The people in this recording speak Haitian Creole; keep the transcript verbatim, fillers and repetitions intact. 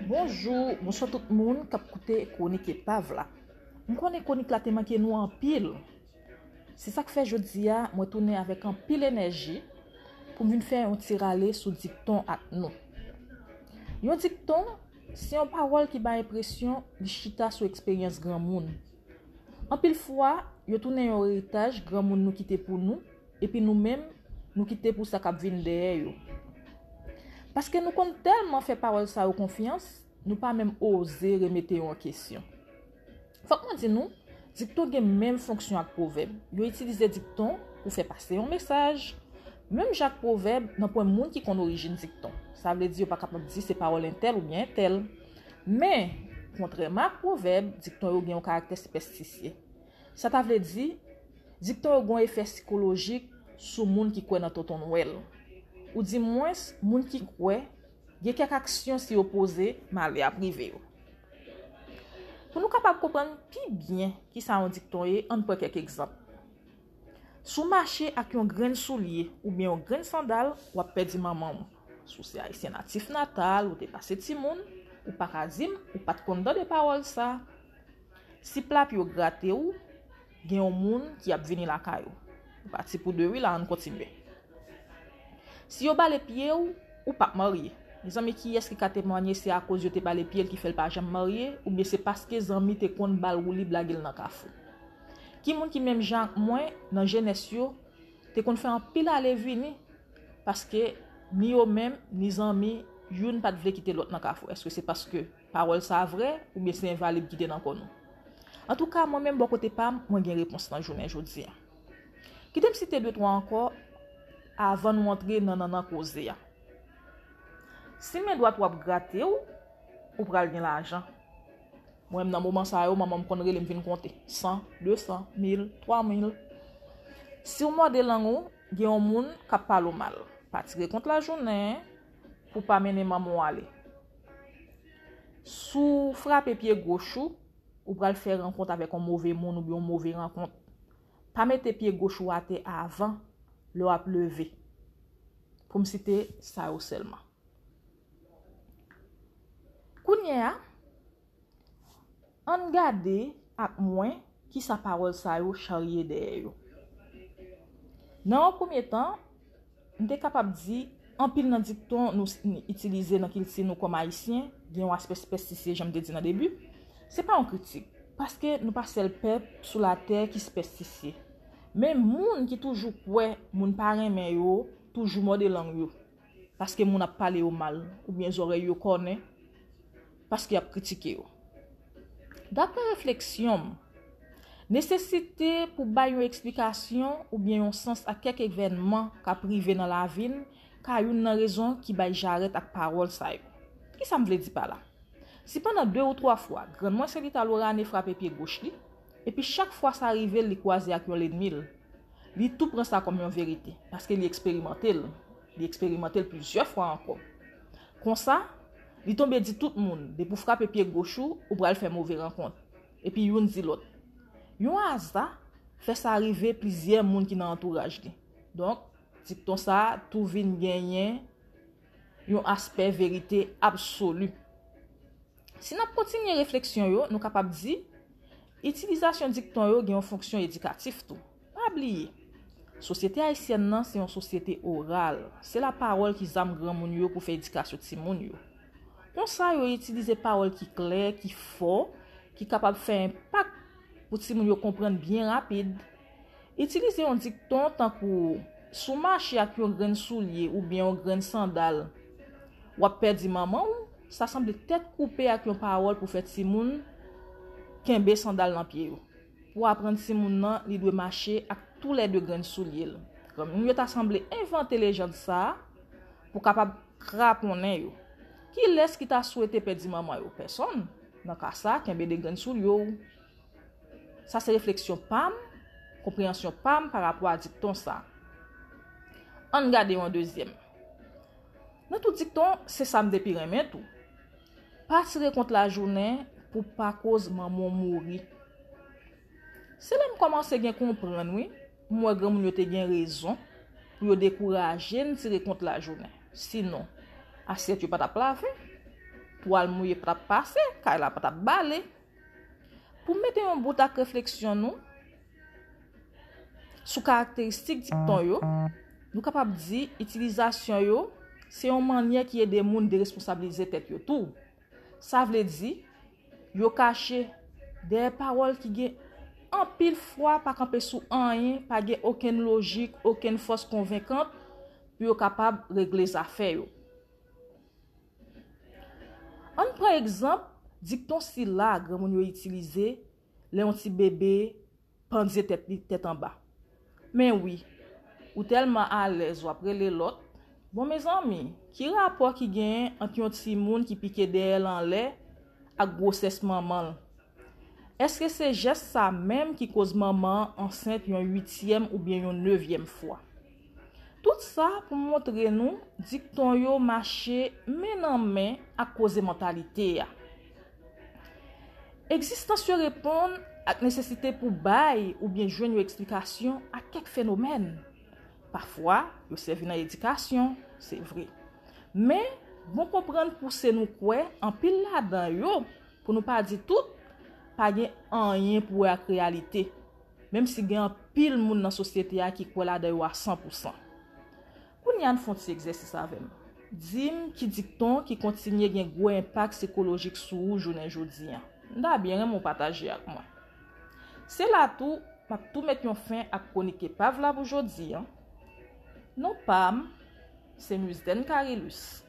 Bonjou, bonswa tout moun k ap koute Kwonik Epav la. M konnen kwonik la te manke nou anpil. Se sa k fè jodi a, mwen tounen avèk anpil enèji pou m vin fè yon ti rale sou dikton ak nou. Yon dikton, se yon pawòl ki bay enpresyon li chita sou eksperyans granmoun. Anpil fwa, yo tounen yon eritaj granmoun nou kite pou nou, epi nou menm, nou kite pou sa k ap vin dèyè yo. Paske nou konn tèlman fè pawòl sa yo konfyans, nou pa menm oze remete yo an kesyon. Fòk mwen di nou, dikton gen menm fonksyon ak pwovèb. Yo itilize dikton pou fè pase yon mesaj. Menm jan ak pwovèb, nanpwen moun ki konn orijin dikton. Sa vle di yo pa kapab di se pawòl entèl oubyen entèl. Men, kontrèman ak pwovèb, dikton yo gen yon karaktè sipèstisye. Sa ta vle di, dikton yo gen yon efè sikolojik sou moun ki kwè nan tonton Nwèl. Oudimwens, moun ki kwè gen kèk aksyon si yo poze, malè ap rive yo. Pou nou kapab konprann pi byen kisa yon dikton ye, ann pran kèk egzanp. Si w mache ak yon grenn soulye oubyen yon grenn sandal, w ap pèdi manman w. Si w se ayisyen natif natal, ou te pase timoun, ou pa ka di m ou pa t konn tande pawòl sa. Si pla pye w grate w, gen yon moun ki ap vini lakay ou. Nou pati pou de wi la, ann kontinye. Si yo bale pye w, ou p ap marye. Mezanmi, kiyès ki ka temwanye se akoz yo te bale pye l ki fè l pa janm marye, oubyen se paske zanmi te konn ba l woulib lage l nan kafou? Ki moun ki menm jan ak mwen, nan jenès yo, te konn fè anpil ale vini, paske ni yo menm, ni zanmi, youn pa t vle kite lòt nan kafou? Èske se paske pawòl sa a vrè, oubyen se envalib ki te nan kò nou? Antouka, mwen menm bò kote pa m, mwen gen repons nan jounen jodi a. Kite m site de twa ankò avan nou antre nan nannan koze a. Si men dwat ou ap grate w, ou pral gen lajan. Mwen menm nan moman sa yo, manman m konn rele m vin konte. San, de san, mil, twa mil. Si w mòde lang ou, gen yon moun k ap pale w mal. Pa tire kont lajounen pou pa mennen manman w ale. Si w frape pye goch ou, ou pral fè rankont avèk yon move moun oubyen yon move rankont. Pa mete pye goch ou atè avan lè w ap leve. Pou m site sa yo sèlman. Kounye a, ann gade ak mwen kisa pawòl sa yo charye dèyè yo. Nan yon premye tan, m te kapab di, anpil nan dikton nou s- n- itilize nan kilti nou kòm Ayisyen gen yon aspè sipèstisye, jan m te di nan debi. Se pa yon kritik, paske nou pa sèl pèp sou latè ki sipèstisye. Men moun ki toujou kwè moun pa renmen yo, toujou mòde lang yo, paske moun ap pale yo mal, oubyen zòrèy yo kònen, paske y ap kritike yo. Daprè refleksyon m, nesesite pou bay yon eksplikasyon oubyen yon sans a kèk evènman k ap rive nan lavi n ka youn nan rezon ki bay jarèt ak pawòl sa yo. Kisa m vle di pa la? Si pandan de ou twa fwa, grann mwen Selita Lorane frape pye goch li, epi chak fwa sa rive l, li kwaze ak yon lènmi l, li tou pran sa kòm yon verite, paske li eksperimante l, li eksperimante l plizyè fwa ankò. Konsa, li tonbe di tout moun, depi w frape pye goch ou, ou pral fè move rankont. Epi youn di lòt. Yon aza fè sa rive plizyè moun ki nan antouraj li. Donk, dikton sa a tou vin genyen yon aspè verite absoli. Si n ap kontinye refleksyon yo, nou kapab di, itilizasyon dikton yo gen yon fonksyon edikatif tou. Pa bliye, sosyete ayisyèn nan se yon sosyete oral. Se lapawòl ki zam granmoun yo pou fè edikasyon timoun yo. Konsa, yo itilize pawòl ki klè, ki fò, ki kapab fè enpak pou timoun yo konprann byen rapid. Itilize yon dikton tankou, si w mache ak yon grenn soulye oubyen yon grenn sandal, w ap pèdi manman w, sa sanble tèt koupe ak yon pawòl pou fè timoun kenbe sandal nan pye yo. Pou aprann timoun nan, li dwe mache ak toulède grenn soulye l. Granmoun yo ta sanble envante lejand sa a pou kapab kraponnen yo. Kilès ki ta swete pèdi manman yo? Pèsonn. Nan ka sa, kenbe de grenn soulye w. Sa se refleksyon pa m, konpreyansyon pa m pa rapò a dikton sa. Ann gade yon dezyèm. Nan tout dikton, se sa m te pi renmen tou. Pa tire kont lajounen pou pa koz manman w mouri. Se la m kòmanse gen konprann, wi. M wè granmoun yo te gen rezon. pou yo dekouraje n tire kont lajounen. Sinon, asyèt yo pa t ap lave, twal mouye pa t ap pase, kay la pa t ap bale. Pou m mete yon bout ak refleksyon nou sou karakteristik dikton yo, nou kapab di itilizasyon yo se yon mannyè ki ede moun deresponsabilize tèt yo tou. Sa vle di, yo kache dèyè pawòl ki gen anpil fwa pa kanpe sou anyen, pa gen okenn lojik, okenn fòs konvenkant pou yo kapab regle zafè yo. Ann pran egzanp dikton sila granmoun yo itilize lè yon ti bebe pandye tèt li tèt anba. Men wi, ou tèlman alèz w ap rele lòt. Bon, mezanmi, ki rapò ki genyen ant yon timoun ki pike dèyè l anlè ak gwosès manman l? Èske se jès sa menm ki koz manman an ansent yon uityèm oubyen yon nevyèm fwa? Tout sa pou montre nou dikton yo mache men nan men ak koze mantalite a. Egzistans yo reponn ak nesesite pou bay oubyen jwenn yon eksplikasyon a kèk fenomèn. Pafwa, yo sèvi nan edikasyon, se vre. Men, bon konprann pouse nou kwè anpil ladan yo, pou nou pa di tout, pa gen anyen pou wè ak reyalite, menm si gen anpil moun nan sosyete a ki kwè ladan yo a san pou san. Kounye a, ann fè yon ti egzèsis avè m. Di m ki dikton ki kontinye gen gwo enpak sikolojik sou ou jounen jodi a. M ta byen renmen w pataje ak mwen. Se la tou, m ap tou met yon fen ak kwonik epav la pou jodi a. Non pa m, se Musden Carilus.